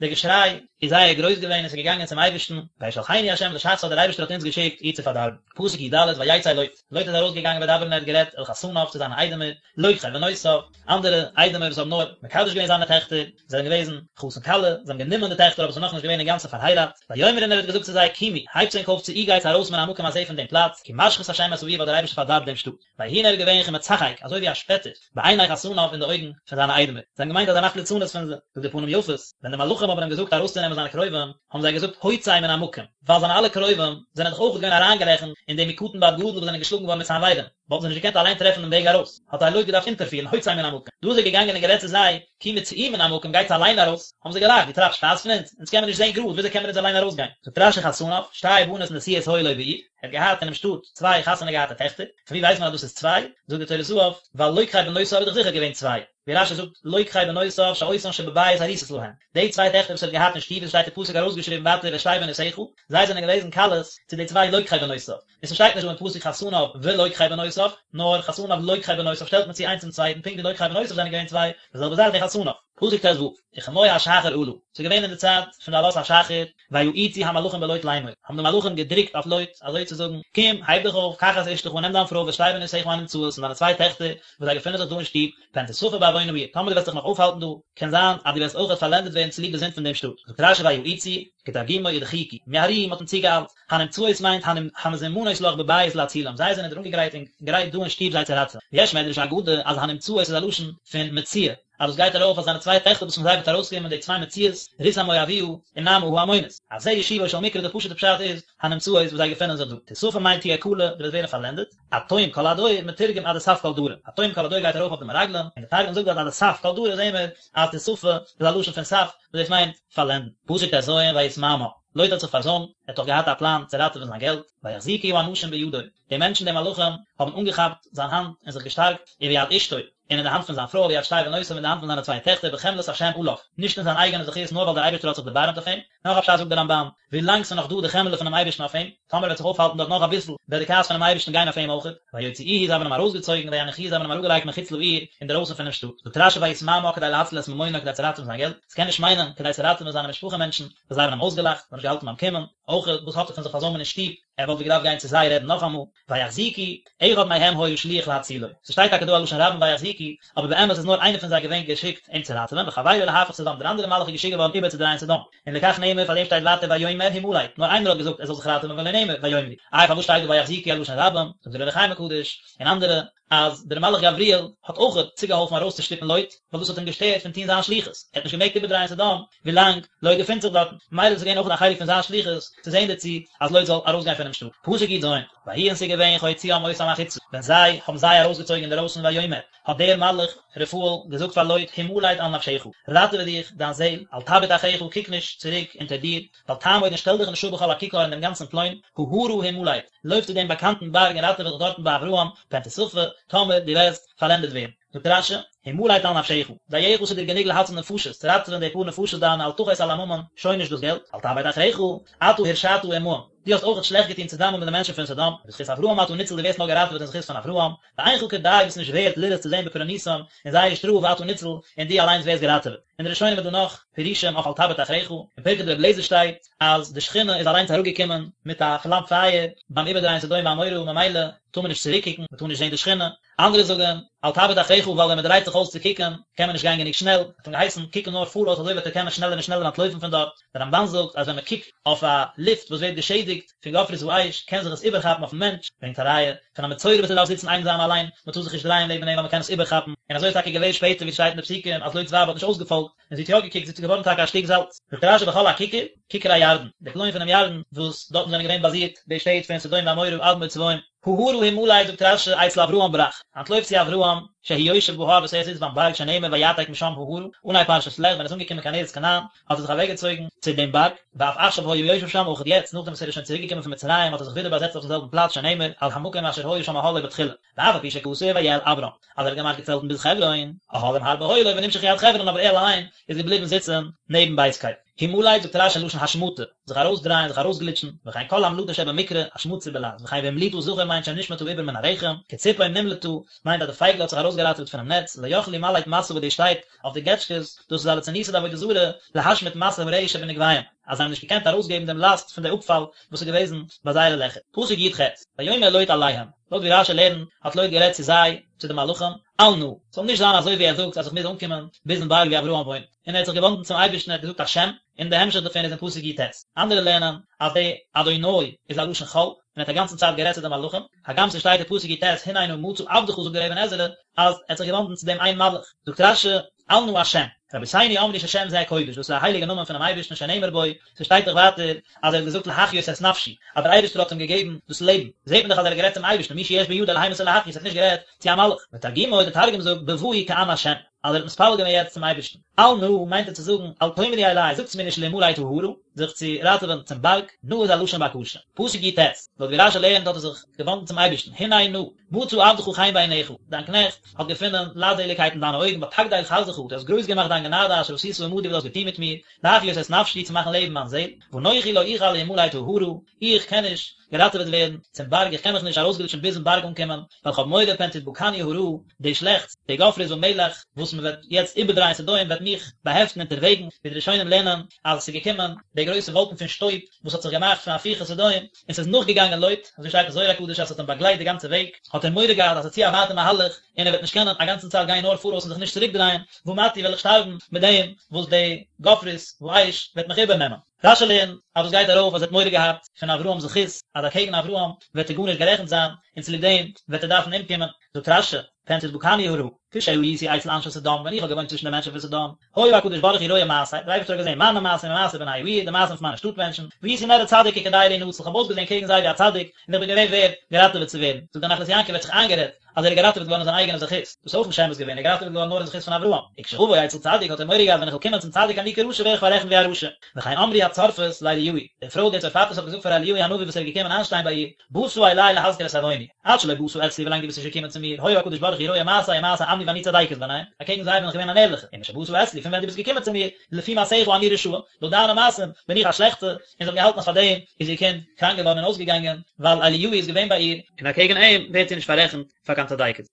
דער געשריי איז זייער גרויס געווען און עס איז געגאנגען צום אייבערשטן, וישלחנו ה' לשחתה דער אייבערשטער האט אונז געשיקט איר צו פארדארבן. פסוק י ד, ויצא לוט, לוט איז ארויסגעגאנגען וידבר און ער האט גערעדט אל חתניו צו זיינע איידעמער, לוקחי בנותיו, אנדערע איידעמער וואס האבן נאר מקדש געווען זיינע טעכטער, זיי זענען געוועזן חתן כלה, זיי האבן גענומען די טעכטער אבער עס איז נאכנישט געווען אינגאנצן פארהייראט, ויאמר און ער האט געזאגט צו זיי, קומו, הייבטס ענק אויף צאו גייטס ארויס מן המקום הזה פון דעם פלאץ, כי משחית השם את העיר ווייל דער אייבערשטער פארדארבט דעם שטאט. ויהי און ער איז געווען כמצחק, אזוי ווי א שפעטער, בעיני חתניו אין די אויגן פון זיינע איידעמער. זיי האבן געמיינט אז ער מאכט ליצנות פון זיי. זאגט דער פנים יפות, ווען די מלאכים האבן אים געזאגט ארויסצונעמען זיינע קרובים, האבן זיי געזאגט הוצא מן המקום, ווייל זיינע אלע קרובים זענען דאך אויך געווען אריינגערעכנט אין די מקטן ועד גדול וואס זענען געשלאגן געווארן מיט סנוורים. וואלטן זיי נישט געקענט אליין טרעפן דעם וועג ארויס, האט זיי לוט געדארפט אונטערפירן, הוצא מן המקום. דא איז ער געגאנגען און גערעדט צו זיי, קומו צאו מן המקום, גייטס אליין ארויס, האבן זיי געלאכט, דו טרייבסט שפאס פון אונז? אונז קען מען נישט זען גראד, וויאזוי קען מען אונז אליין ארויסגיין? זאגט רש י חתניו, שתי בנות נשואות היו לו בעיר, ער האט געהאט אינעם שטאט צוויי חתונה געהאטע טעכטער, פון ווי ווייסט מען אז דאס איז צוויי? זאגט די טורי זהב, ווייל לוקחי בנותיו איז דאך זיכער געווען צוויי, ווי רש י זאגט לוקחי בנותיו שאותן שבבית ארוסות להם, די צוויי טעכטער וואס ער האט געהאט אין שטוב, עס שטייט אין פסוק ארויסגעשריבן ווייטער ואת שתי בנותיך, זיי זענען געוועזן כלות צו די צוויי לוקחי בנותיו. און ס'שטייט נישט דא אין פסוק חתניו ולוקחי בנותיו, נאר חתניו לוקחי בנותיו שטעלט מען צו איינס צום צווייטן פונקט ווי לוקחי בנותיו זענען געווען צוויי, די זעלבע זאך די חתניו. פסוק ט ו, וכמו השחר עלה, ס'איז געווען אין די צייט פון די עלות השחר, ויאיצו המלאכים בלוט לאמור, האבן די מלאכים געדרוקט אויף לוט, אזוי צו זאגן, קום, הייב דיך אויף, קח את אשתך, נעם דיין פרוי ואת שתי בנותיך הנמצאות, און דיינע צוויי טעכטער, וואס זיי געפינען זיך דא אין שטוב, פן תספה בעוון העיר, טאמער דו וועסט זיך נאך אויפהאלטן דא, קען זיין אז דו וועסט אויכעט פארלענדעט ווערן צוליב די זינד פון דעם שטאט. זאגט רש י ויאיצו, כתרגומו ודחיקו, מיהרוהו, מ'האט אים צוגעאיילט, הנמצאות מיינט המזומנות לך בבית להצילם, זיי זענען דיר אנגעגרייט און גרייט דא אין שטוב זיי צו ראטעווען. ויש מדרש אגדה אז הנמצאות איז א לשון פון מציאה, אז דאס גייט ארויף אויף זיינע צוויי טעכטער וואס פון זיי וועט ארויסקומען די צוויי מציאות, רות המואביה און נעמה העמונית. אז זה ישובו של מקרא די פשוט'ע פשט איז, הנמצאות וואס זיי געפינען זיך דא. תספה מיינט תהיה כלה, דו וועסט ווערן פארלענדעט. עד תום כל הדור, מתורגם עד דסף כל דרא. עד תום כל הדור גייט ארויף אויף די מרגלים, און די תרגום זאגט דארט עד דסף כל דרא זעהן מיר אז תספה איז א לשון פון סף, וואס דאס מיינט פארלענדן. פסוק ט ז ויתמהמה, לוט האט זיך פארזוימט. האט דאך געהאט א פלאן צו ראטעווען זיין געלט, ויחזיקו האנשים בידו, די מענטשן די מלאכים האבן אנגעכאפט זיין האנט און זיך געשטארקט, וביד אשתו, און אין די האנט פון זיין פרוי, וביד שתי בנותיו, אין די האנט פון זיינע צוויי טעכטער, בחמלת השם עליו, נישט אין זיין אייגענע זכות נאר ווייל דער אייבערשטער האט זיך דערבארעמט אויף אים. נאך א פשט זאגט דער רמב"ן, ווילאנג ס'איז נאך דא די חמלה פונעם אייבערשטן אויף אים, טאמער ער וועט זיך אויפהאלטן דארט נאך אביסל, וועט די כעס פונעם אייבערשטן גיין אויף אים אויכעט. ויוציאוהו זיי האבן אים ארויסגעצויגן, ויניחוהו זיי האבן אים אראפגעלייגט מחוץ לעיר, אינדערויסן פונעם שטאט. זאגט רש"י ויתמהמה כדי להציל את ממונו כדי צו ראטעווען זיין געלט, ס'קען נישט מיינען כדי צו ראטעווען זיינע משפחה מענטשן, וואס זיי האבן אים אויסגעלאכט, זיי האבן נישט געהאלטן ביים קומען, אויכעט וואס האט ער פון זיך פארזוימען אין שטוב, ער וואלט ווי געדארפט גיין צו זיי רעדן נאכאמאל. ויחזיקו, אחד מהם היה שליח להצילו. ס'שטייט טאקע דא א לשון רבים ויחזיקו, אבער באמת איז נאר איינער פון זיי געווען געשיקט אים צו ראטעווען, וחבירו להפוך סדום, דער אנדערער מלאך איז געשיקט געווארן איבערצודרייען סדום. און לכך נאמר, פאר דעם שטייט ווייטער ויאמר המלט, נאר איינער האט געזאגט ער זאל זיך ראטעווען ולא נאמר ויאמרו. איי פארוואס שטייט דא ויחזיקו א לשון רבים? זאגט דער אור החיים הקדוש, און אנדערע, אז דער מלאך גבריאל האט אויכעט צוגעהאלפן ארויסצושטופן לוט, ווייל דאס האט אים געשטערט פון טון זיין שליחות, ער האט נישט געמעגט איבערדרייען סדום ווילאנג לוט געפינט זיך דארטן, ממילא איז עס געווען אויכעט א חלק פון זיין שליחות צו זען דערצו אז לוט זאל ארויסגיין פונעם שטאט. פסוק י"ז, ויהי און ס'איז געווען כהוציאם אותם החוצה, ווען זיי האבן זיי ארויסגעצויגן אינדערויסן ויאמר, האט דער מלאך רפאל געזאגט פאר לוט, המלט על נפשך, ראטעווע דיך, דיין זעל, אל תביט אחריך, קוק נישט צוריק אונטער דיר, ואל תעמוד און שטעל דיך נישט אפ בכל הכיכר אין דעם גאנצן פלוין, ההרה המלט, לויף צו דעם באקאנטן בארג און ראטעווע דיך דארטן ביי אברהם, פן תספה, טאמער דו וועסט פארלענדעט ווערן. זאגט רש"י, המלט על נפשך, דייך ס'איז דיר גענוג להציל נפשות, צו ראטעווען די פאר נפשות דיינע, אל תחוס על הממון, שוין נישט דאס געלט, אל תביט אחריך, אתה הרשעת עמהם, דו האסט אויכעט שלעכט געטון צוזאמען מיט די מענטשן פון סדום, ובזכות אברהם אתה ניצול דו ווערסט נאר געראטעוועט אין זכות פון אברהם, ואינך כדאי ביסט נישט ווערט לראות צו זען בפורענותם אין זייער שטראף ואתה ניצול און דו אליינס ווערסט געראטעוועט. אין די ראשונים איז דא נאך פירושים אויף אל תביט אחריך, אין פרקי דרבי אליעזר שטייט אז די שכינה איז אליינס אראפגעקומען מיט א פלאם פייער ביים איבערדרייען סדום ועמורה ממילא טאר מען נישט צוריקקוקן, מען טאר נישט זען די שכינה. אנדערע זאגן אל תביט אחריך ווייל ווען מען דרייט זיך אויס צו קוקן קען מען נישט גיין גענוג שנעל, האט אים געהייסן קוקן נאר פאראויס אזוי וועט ער קענען שנעלער און שנעלער אנטלויפן פון דארט. דער רמב"ן זאגט אז ווען מען קוקט אויף א לופט וואס ווערט געשעדיגט פון גופרית ואש קען זיך עס איבערכאפן אויפן מענטש, ברענגט א ראיה פון א מצורע וואס ער דארף זיצן איינזאם אליין, מען טאר זיך נישט דרייען לעבן אים ווייל מען קען עס איבערכאפן, און אזוי איז טאקע געווען שפעטער ווי ס'שטייט אין די פסוקים אז לוט'ס ווייב האט נישט אויסגעפאלגט און זי האט יא געקוקט, זי איז געווארן טאקע א שטיק זאלץ. זאגט רש"י בכל הכיכר, כיכר הירדן, די פלוין פונעם ירדן וואס דארטן זענען געווען באזירט די שטעט פון סדום ועמורה אדמה וצבוים. ההרה המלט זאגט רש"י אצל אברהם ברח, אנטלויף צו אברהם, שהוא יושב בהר וואס ער זיצט ביים בארג שנאמר ויעתק משם ההרה, אנהייב פרשת לך ווען ער איז אנגעקומען קיין ארץ כנען האט ער זיך אוועקגעצויגן צו דעם בארג, ואף עכשיו היה יושב שם אויך יעצט נאכדעם וואס ער איז שוין צוריק געקומען פון מצרים האט ער זיך ווידער באזעצט אויפן זעלבן פלאץ שנאמר על המקום אשר היה שם אהלו בתחילה, ואף על פי שכתוב ויאהל אברם אז ער האט געמאכט געצעלטן ביז חברון, אהלים הרבה היו לו ונמשחו עד חברון אבער ער אליין איז געבליבן זיצן נעבן בית קל. המלט זאגט רש"י לשון השמטה, זיך ארויסדרייען, זיך ארויסגליטשן, וכן כל המלטה שבמקרא, השמצה בלע"ז, וכן והמליטה זכר מיינט שנשמט העובר מן הרחם, כציפור נמלטה, מיינט אז די פייגל האט זיך ארויסגעראטעוועט פונעם נעץ, לא יכלו למלט משא וואס דאס שטייט אויף די געטשקעס, דאס איז א ליצנותא דעבודה זרה, להשמיט משא הרעי שבנקביהם, אז זיי האבן נישט געקענט ארויסגעבן דעם לאסט פון די אפפאל וואס איז געוועזן ביי זייערע לעכער. פסוק י"ח, ויאמר לוט אליהם, לויט ווי רש"י לערנט, האט לוט גערעדט צו זיי, צו די מלאכים, אל נא, ס'זאל נישט זיין אזוי ווי ער זאגט אז איך מוז אנקומען ביזן בארג ווי אברהם וואוינט, און ער האט זיך געוואנדן צום אייבערשטן ער האט געזאגט השם, און די המשך דערפון איז אין פסוק י"ט. אנדערע לערנען אז די אדוני איז א לשון חול, און ער האט א גאנצן צייט גערעדט צו די מלאכים, הגם ס'שטייט אין פסוק י"ט הנה נא מצא עבדך זאגט דער אבן עזרא אז ער האט זיך געוואנדן צו דעם איין מלאך, זאגט רש"י, אל נא השם, רבותינו אמרו ששם זה קודש, דאס איז א הייליגע נאמען פונעם אייבערשטן שנאמר בו, ס'שטייט דאך ווייטער אז ער האט געזאגט להחיות את נפשי, אז דער אייבערשטער האט אים געגעבן דאס לעבן, זעט מען דאך אז ער האט גערעדט צום אייבערשטן, מי שיש בידו להמית ולהחיות, ער האט נישט גערעדט צו א מלאך, ותרגומו, דער תרגום זאגט בבאו כען השם, אז ער האט מתפלל געווען יעצט צום אייבערשטן. אל נא מיינט ער צו זאגן, אל תאמרו אלי, זאגטס מיר נישט להמלט ההרה, זיך צו ראטעווען צום בארג, נא איז א לשון בקשה. פסוק י"ט, לויט ווי רש"י לערנט האט ער זיך געוואנדן צום אייבערשטן, הנה נא, מצא עבדך חן בעיניך, דיין קנעכט האט געפונען לייטזעליגקייט אין דיינע אויגן, ותגדל חסדך, דו האסט גרויס געמאכט דיין גענאדע אשר עשית עמדי וואס דו האסט געטון מיט מיר, להחיות את נפשי צו מאכן לעבן מיין זעל, ואנכי לא אוכל להמלט ההרה, איך קען נישט געראטעוועט ווערן צום בארג, איך קען מיך נישט ארויסגליטשן ביזן בארג אנקומען, ווייל כ'האב מורא פן תדבקני הרעה, די שלעכטס, די גופרית ומלח, וואס מען וועט יעצט איבערדרייען סדום וועט מיך באהעפטן אונטערוועגן, ווי די ראשונים לערנען אז עס איז געקומען די גרויסע וואלקן פון שטויב וואס האט זיך געמאכט פון הפיכת סדום, און ס'איז נאכגעגאנגען לוט, אזוי שטייט אין זוהר הקדוש אז ס'האט אים באגלייט די גאנצע וועג, האט ער מורא געהאט אז ס'איז צו א ווייטע מהלך און ער וועט נישט קענען א גאנצן צייט גיין נאר פאראויס און זיך נישט צוריקדרייען, ומתי וועל איך שטארבן מיט דעם וואס די גופרית ואש וועט מיך איבערנעמען. רש"י לערנט אז דאס גייט ארויף אז ער האט מורא געהאט פון אברהם'ס זכות, אז אקעגן אברהם וועט ער גארנישט גערעכנט זיין, און צוליב דעם וועט ער דארפן אומקומען. זאגט רש"י, פן תדבקני הרעה, כשהייתי אצל אנשי סדום, ווען איך האב געוואוינט צווישן די מענטשן פון סדום, היה הקדוש ברוך הוא רואה מעשיי, דער אייבערשטער האט געזען מיינע מעשים ומעשה בני העיר, די מעשים פון מיינע שטאט מענטשן, והייתי נראה צדיק וכדאי להינצל, איך האב אויסגעזען קעגן זיי ווי א צדיק, און איך בין געווען ווערד געראטעוועט צו ווערן. זאגט דער נחלת יעקב, ער האט זיך איינגערעדט אז ער איז געראטעוועט געווארן אין זיין אייגענע זכות, דאס איז אויך נישט אמת געווען, ער איז געראטעוועט געווארן נאר אין זכות פון אברהם. וכשאבוא אצל צדיק האט ער מורא געהאט ווען איך וועל קומען צום צדיק אני כרשע ווער איך פאררעכנט ווי א רשע. וכן אמרו הצורפות לאליהו. לאליהו, די פרוי די צרפתית האט געזאגט פאר אליהו הנביא וואס ער איז געקומען איינשטיין ביי איר, באת אלי להזכיר את עווני, עד שלא באת אצלי ווילאנג דו ביסט נישט געקומען צו מיר, היה הקדוש ברוך הוא רואה מעשי ומעשה עמי ואני צדקת ביניהם, אקעגן זיי בין איך געווען אן ערליכע, ומשבאת אצלי פון ווען דו ביסט געקומען צו מיר, לפי מעשיך אני רשעה, לויט דיינע מעשים בין איך א שלעכטע, און זי האט געהאלטן אז פאר דעם איז איר קינד קראנק געווארן און אויסגעגאנגען, ווייל אליהו איז געווען ביי איר, און אקעגן אים ווערט זי נישט פאררעכנט פאר קיין צדקת.